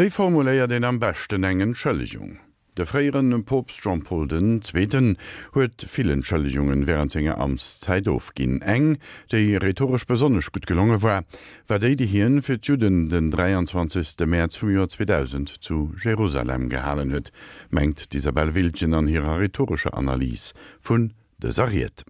Wéi formuléiert een am beschten eng Entschëllegung? De fréiere Poopst Jean-Paul den Zweeten huet vill Entschëllegungen wärend senger Amtszäit ofginn. Eng, déi rhetoresch besonnesch gutt gelonge war, war déi, déi hien fir d'Judden den 23. Mäerz vum Joer 2000 zu Jerusalem gehalen huet, mengt d'Isabelle Wiltgen an hirer rhetorescher Analys vun dëser Ried.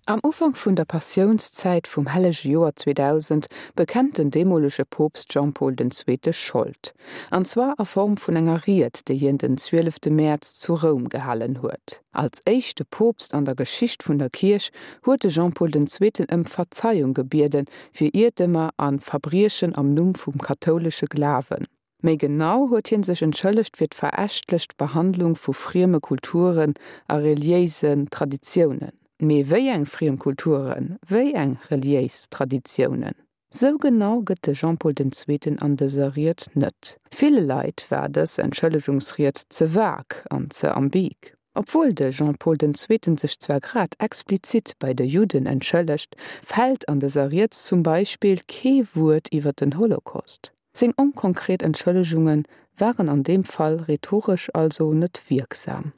Am Ufank vun der Passiounszäit vum hellege Joer 2000 bekennt den deemolege Poopst Jean-Paul den Zweete Schold. An zwar a Form vun enger Ried, déi hien den 12 Mäerz zu Roum gehalen huet. Als éischte Poopst an der Geschicht vun der Kierch huet de Jean-Paul den Zweeten ëm Verzeiung gebiede fir Iertemer a Verbriechen am Numm vum kathoulesche Glawen. Méi genau huet hie sech entschëllegt fir d'verächtlecht Behandlung vu frieme Kulturen a reliéisen Traditiounen. Mee wéi eng friem Kulturen, wéi eng reliéis Traditiounen? Sou genau gëtt de Jean-Paul den Zweeten an dëser Ried net. Ville Leit war dës Entschëllegungsried ze vag an ze ambig. Obwuel de Jean-Paul den Zweeten sech zwar grad explizit bei de Judden entschëllegt, fält an dëser Ried zum Beispill kee Wuert iwwer den Holocaust. Seng onkonkret Entschëllegunge waren an deem Fall rhetoresch also net wierksam.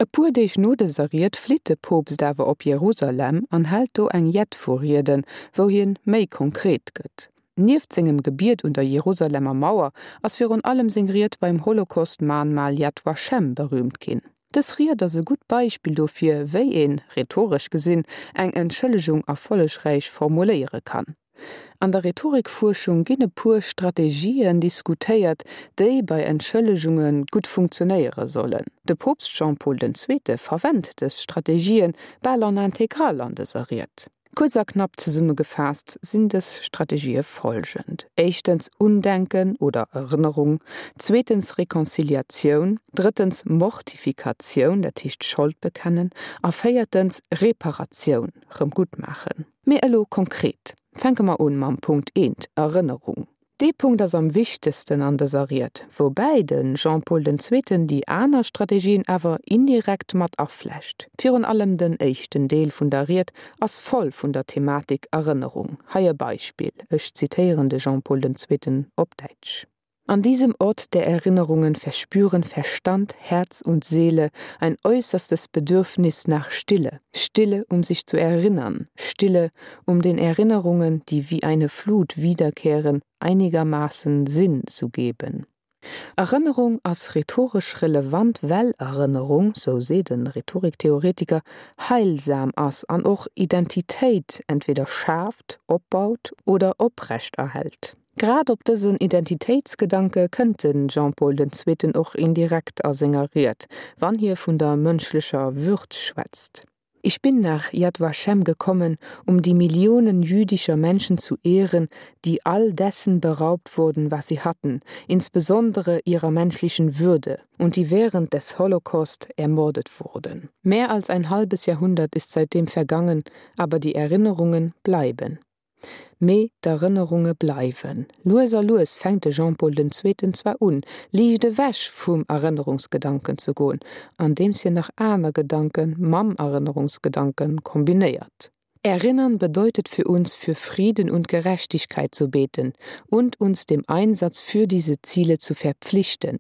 E puer Deeg no dëser Ried flitt de Poopst awer op Jerusalem an hält do eng jett vu Rieden, wou hien méi konkret gëtt. Nieft sengem Gebiet un der Jerusalemer Mauer ass virun allem seng Ried beim Holocaust-Mahnmal Yad Vashem berüümt ginn. Dës Ried ass e gutt Beispill dofir, wéi een, rhetoresch gesinn, eng Entschëllegung erfollegräich formuléiere kann. An der Rhetorikfuerschung ginn e puer Strategien diskutéiert, déi bei Entschëllegunge gutt funktionéiere sollen. De Poopst Jean-Paul den Zweete verwennt dës Strategien bal en intégrale an dëser Ried. Kuerz a knapp zesummegefaasst sinn dës Strategië folgend, éischtens Undenken oder Erënnerung, zweetens Reconciliatioun, drëttens Mortifikatioun, dat heescht Schold bekennen, a véiertens Reparatioun, rëm guttmaachen. Mee elo konkret, fänke mer un mam Punkt eent, Erënnerung. Dee Punkt ass am wichtegsten an dëser Ried, woubäi de Jean-Paul den Zweeten déi aner Strategien awer indirekt mat aflecht. Virun allem den éischten Deel vun der Ried ass voll vun der Thematik Erënnerung. Hei e Beispill, ech zitéieren de Jean-Paul den Zweeten op Däitsch. An diesem Ort der Erinnerungen verspüren Verstand, Herz und Seele ein äußerstes Bedürfnis nach Stille, Stille, um sich zu erinnern, Stille, um den Erinnerungen, die wie eine Flut wiederkehren, einigermaßen Sinn zu geben. Erënnerung ass rhetoresch relevant, well Erënnerung, sou seet e Rhetoriktheoretiker, heilsam ass an och Identitéit entweder schaaft, opbaut oder oprechterhält. Grad op dësen Identitéitsgedanke kënnt de Jean-Paul den Zweeten och indirekt a senger Ried, wann hie vun der mënschlecher Würd schwätzt. Ich bin nach Yad Vashem gekommen, um die Millionen jüdischer Menschen zu ehren, die all dessen beraubt wurden, was sie hatten, insbesondere ihrer menschlichen Würde, und die während des Holocaust ermordet wurden. Mehr als ein halbes Jahrhundert ist seitdem vergangen, aber die Erinnerungen bleiben. Mee d'Erënnerunge bleiwen. Lues a lues fänkt de Jean-Paul den Zweeten zwar un, liicht ewech vum Erënnerungsgedanken ze goen, andeems hien nach aner Gedanke mam Erënnerungsgedanke kombinéiert. Erinnern bedeutet für uns, für Frieden und Gerechtigkeit zu beten und uns dem Einsatz für diese Ziele zu verpflichten.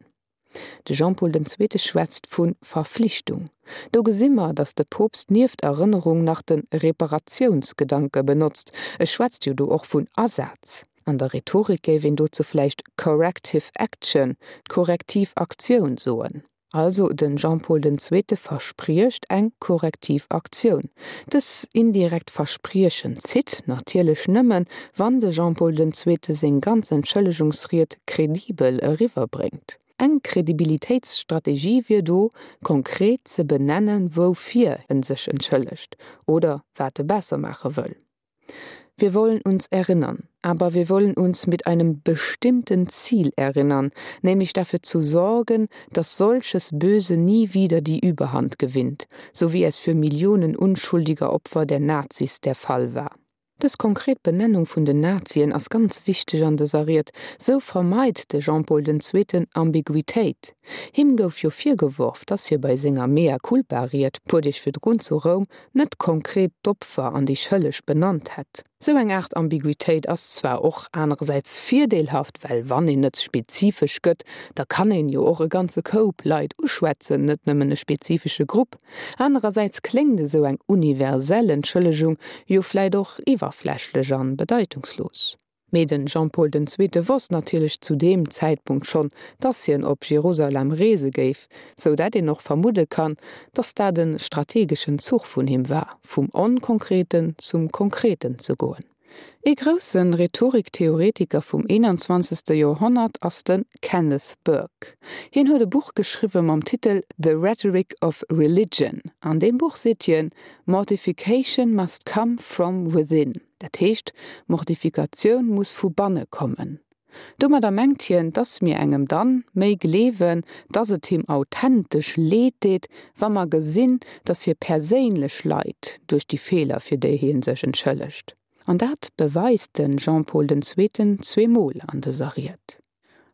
De Jean-Paul den Zweete schwätzt vu Verflichtung. Do gesi mer, datt de Poopst nieft Erënnerung nach de Reparatiounsgedanke benotzt. E schwätzt jo do och vun Asaz. An der Rhetorik géif een dozou vläicht corrective action, korrektiv Aktioun soen. Also den Jean-Paul den Zweete verspriecht eng korrektiv Aktioun. Dës indirekt Verspriechen zitt natierlech nëmmen, wann de Jean-Paul den Zweete seng ganz Entschëllegungsried kredibel eriwwerbréngt. Eng Kredibilitéitsstrategie wier do, konkret ze benennen, woufir en sech entschëllegt oder wat e besser maache wëll. Wir wollen uns erinnern, aber wir wollen uns mit einem bestimmten Ziel erinnern, nämlich dafür zu sorgen, dass solches Böse nie wieder die Überhand gewinnt, so wie es für Millionen unschuldiger Opfer der Nazis der Fall war. Dës konkret Benennung vun den Nazien ass ganz wichteg an dëser Ried. Sou vermeit de Jean-Paul den Zweeten Ambiguitéit. Him gouf jo virgeworf, dass hie bei senger Mea culpa-Ried puer Deeg virdrun zu Roum net konkret d'Opfer an déi Schëlleg benannt hätt. Sou eng Aart Ambiguitéit ass zwar och anerersäits virdeelhaft, well wann een net spezifesch gëtt, da kann een jo och e ganze Koup Leit uschwätzen, net nëmmen e spezifesche Grupp. Anerersäits kléngt esou eng universell Entschëllegung jo vläit och iwwerflächlech an bedeitungslos. Mee den Jean-Paul den Zweete wosst natierlech zu deem Zäitpunkt schonn, dass hien op Jerusalem reese géif, sou dat een och vermudde kann, dass dat e strategeschen Zuch vun him war, vum Onkonkreten zum Konkreten ze goen. Ee grousse Rhetoriktheoretiker vum 21. Joerhonnert ass de Kenneth Burke. Hien huet e Buch geschriwwe mam Titel The Rhetoric of Religion. An deem Buch seet hien, Mortification must come from within. Dat heescht, Mortifikatioun muss vu banne kommen. Domadder mengt hien, dass mir engem dann méi gleewen, dass et him authentesch leed deet, wa mer gesinn, dass hie perséinlech leit duerch déi Feeler, fir déi hie sech entschëllegt. An dat beweist de Jean-Paul den Zweeten zweemol an dëser Ried.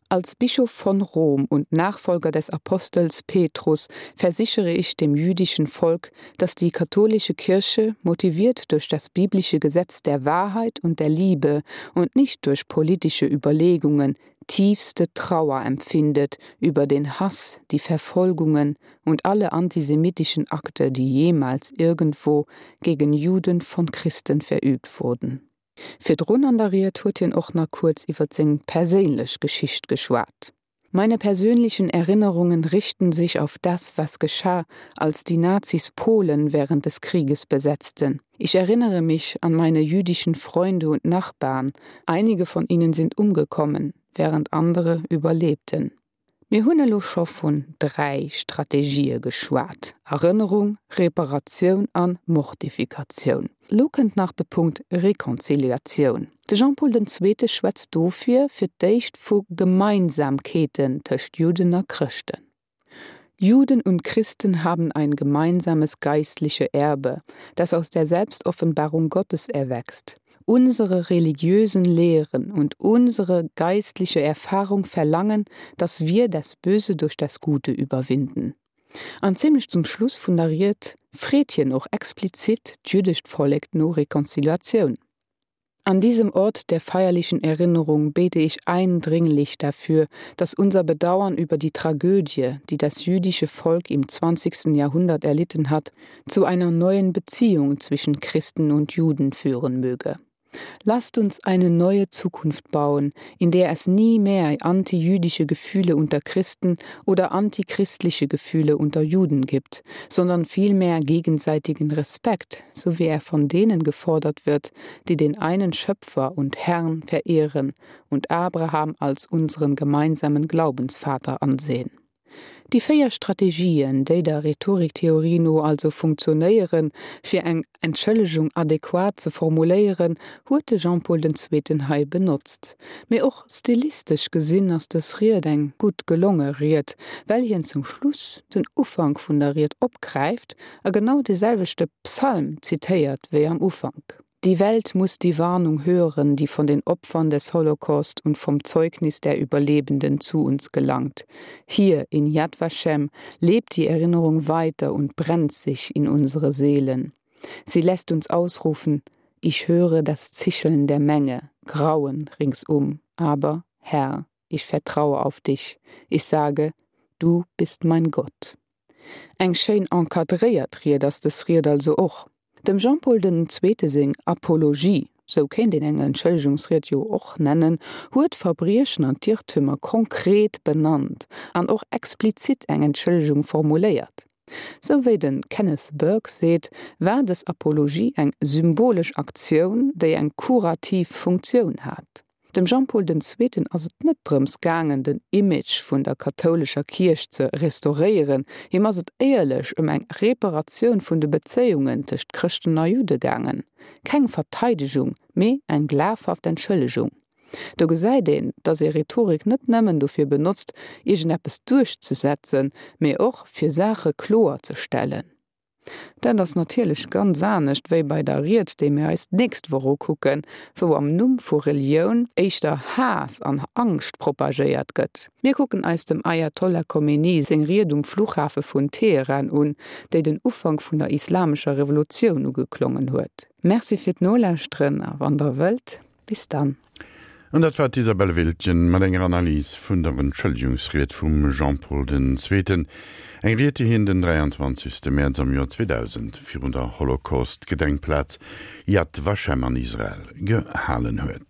Als Bischof von Rom und Nachfolger des Apostels Petrus versichere ich dem jüdischen Volk, dass die katholische Kirche, motiviert durch das biblische Gesetz der Wahrheit und der Liebe und nicht durch politische Überlegungen, tiefste Trauer empfindet über den Hass, die Verfolgungen und alle antisemitischen Akte, die jemals irgendwo gegen Juden von Christen verübt wurden. Virdrun an der Ried huet hien och nach kuerz iwwer seng perséinlech Geschicht geschwat. Meine persönlichen Erinnerungen richten sich auf das, was geschah, als die Nazis Polen während des Krieges besetzten. Ich erinnere mich an meine jüdischen Freunde und Nachbarn. Einige von ihnen sind umgekommen, während andere überlebten. Mir hunn elo scho vun 3 Strategië geschwat, Erënnerung, Reparatioun an Mortifikatioun. Elo kënnt nach de Punkt Rekonziliatioun. De Jean-Paul den Zweete schwätzt dofir fir d'éischt vu Gemeinsamkeeten tëscht Judden a Chrëschten. Juden und Christen haben ein gemeinsames geistliche Erbe, das aus der Selbstoffenbarung Gottes erwächst. Unsere religiösen Lehren und unsere geistliche Erfahrung verlangen, dass wir das Böse durch das Gute überwinden. An zimmlech zum Schluss vun der Ried freet hien och explizit d'jüddescht Vollek no Rekonziliatioun. An diesem Ort der feierlichen Erinnerung bete ich eindringlich dafür, dass unser Bedauern über die Tragödie, die das jüdische Volk im 20. Jahrhundert erlitten hat, zu einer neuen Beziehung zwischen Christen und Juden führen möge. Lasst uns eine neue Zukunft bauen, in der es nie mehr antijüdische Gefühle unter Christen oder antichristliche Gefühle unter Juden gibt, sondern vielmehr gegenseitigen Respekt, so wie er von denen gefordert wird, die den einen Schöpfer und Herrn verehren und Abraham als unseren gemeinsamen Glaubensvater ansehen. Déi 4 Strategien, déi der Rhetoriktheorie no also funktionéieren, fir eng Entschëllegung adequat ze formuléieren, huet de Jean-Paul den Zweeten hei benotzt. Mee och stilistesch gesinn ass dës Ried eng gutt gelonge Ried, well hien zum Schluss den Ufank vun der Ried opgräift a genau de selwechte Psalm zitéiert wéi am Ufank. Die Welt muss die Warnung hören, die von den Opfern des Holocaust und vom Zeugnis der Überlebenden zu uns gelangt. Hier in Yad Vashem lebt die Erinnerung weiter und brennt sich in unsere Seelen. Sie lässt uns ausrufen: Ich höre das Zischeln der Menge, Grauen ringsum, aber Herr, ich vertraue auf dich. Ich sage: Du bist mein Gott. Eng schéin encadréiert Ried ass dës Ried also och. Dem Jean-Paul den Zweete seng Apologie, sou kéint een eng Entschëllegungsried jo och nennen, huet d'Verbriechen an d'Irrtümer konkret benannt an och explizit eng Entschëllegung formuléiert. Sou wéi de Kenneth Burke seet, war dës Apologie eng symbolesch Aktioun, déi eng kurativ Funktioun hat. Dem Jean-Paul den Zweeten ass et net drëms gaangen, den Image vun der kathoulescher Kierch ze restauréieren, him ass et éierlech ëm eng Reparatioun vun de Bezéiungen tëscht Chrëschten a Judde gaangen. Keng Verteidegung, mee eng glafhaft Entschëllegung. Do gesäit een, datt ee Rhetorik net nëmmen dofir benotzt, iergendeppes duerchzesetzen, mee och fir Saache kloer ze stellen. Dat ass natierlech ganz anescht wéi bei der Ried, déi mir eis d'nächst Woch ukucken, wou am Numm vu Relioun éischter Haass an Angscht propagéiert gëtt. Mir kucken eis dem Ayatollah Khomeini seng Ried um Fluchhafe vun Teheran un, déi den Ufank vun der islamescher Revolutioun ugeklongen huet. Merci fir d'Nolauschteren a wann der wëllt, bis dann. An dat war d'Isabelle Wiltgen mat enger Analys vun der Entschëllegungsried vum Jean-Paul den Zweeten, eng Ried, déi hien den 23. Mäerz am Joer 2000 virun der Holocaust-Gedenkplaz Yad Vashem an Israel gehalen huet.